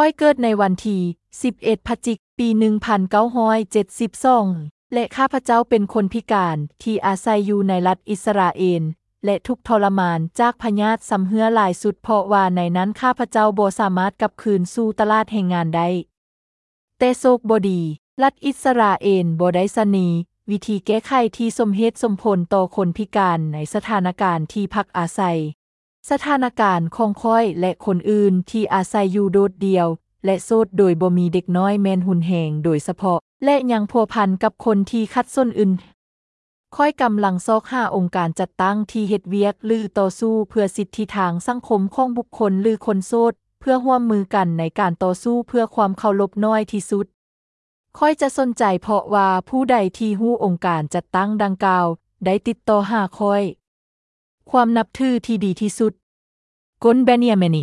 ຂ້ອຍເກີດໃນວັນທີສິບເອັດ ພະຈິກ ປີໜຶ່ງພັນເກົ້າຮ້ອຍເຈັດສິບສອງ ແລະ ຂ້າພະເຈົ້າເປັນຄົນພິການທີ່ອາໄສຢູ່ໃນລັດອິດສະຣາເອນ ແລະ ທຸກທໍລະມານຈາກພະຍາດຊຳເຮື້ອຫຼາຍສຸດ ເພາະວ່າໃນນັ້ນຂ້າພະເຈົ້າບໍ່ສາມາດກັບຄືນສູ່ຕະຫຼາດແຮງງານໄດ້. ແຕ່ໂຊກບໍ່ດີ, ລັດອິດສະຣາເອນບໍ່ໄດ້ສະເໜີວິທີແກ້ໄຂທີ່ສົມເຫດສົມຜົນຕໍ່ຄົນພິການໃນສະຖານະການທີ່ພັກອາໄສ. ສະຖານະການຂອງຂ້ອຍ ແລະ ຄົນອື່ນທີ່ອາໄສຢູ່ໂດດດ່ຽວ ແລະ ໂສດໂດຍບໍ່ມີເດັກນ້ອຍແມ່ນຮຸນແຮງໂດຍສະເພາະ ແລະ ຍັງພົວພັນກັບຄົນທີ່ຂັດສົນອື່ນ. ຂ້ອຍກຳລັງຊອກຫາອົງການຈັດຕັ້ງທີ່ເຮັດວຽກ ຫຼື ຕໍ່ສູ້ເພື່ອສິດທິທາງສັງຄົມຂອງບຸກຄົນ ຫຼື ຄົນໂສດ ເພື່ອຮ່ວມມືກັນໃນການຕໍ່ສູ້ເພື່ອຄວາມເຄົາລົບໜ້ອຍທີ່ສຸດ. ຂ້ອຍຈະສົນໃຈເພາະວ່າຜູ້ໃດທີ່ຮູ້ອົງການຈັດຕັ້ງດັ່ງກ່າວໄດ້ຕິດຕໍ່ຫາຂ້ອຍ. ຄວາມນັບຖືທີ່ດີທີ່ສຸດ. ໂກນ ເບນຢາມິນ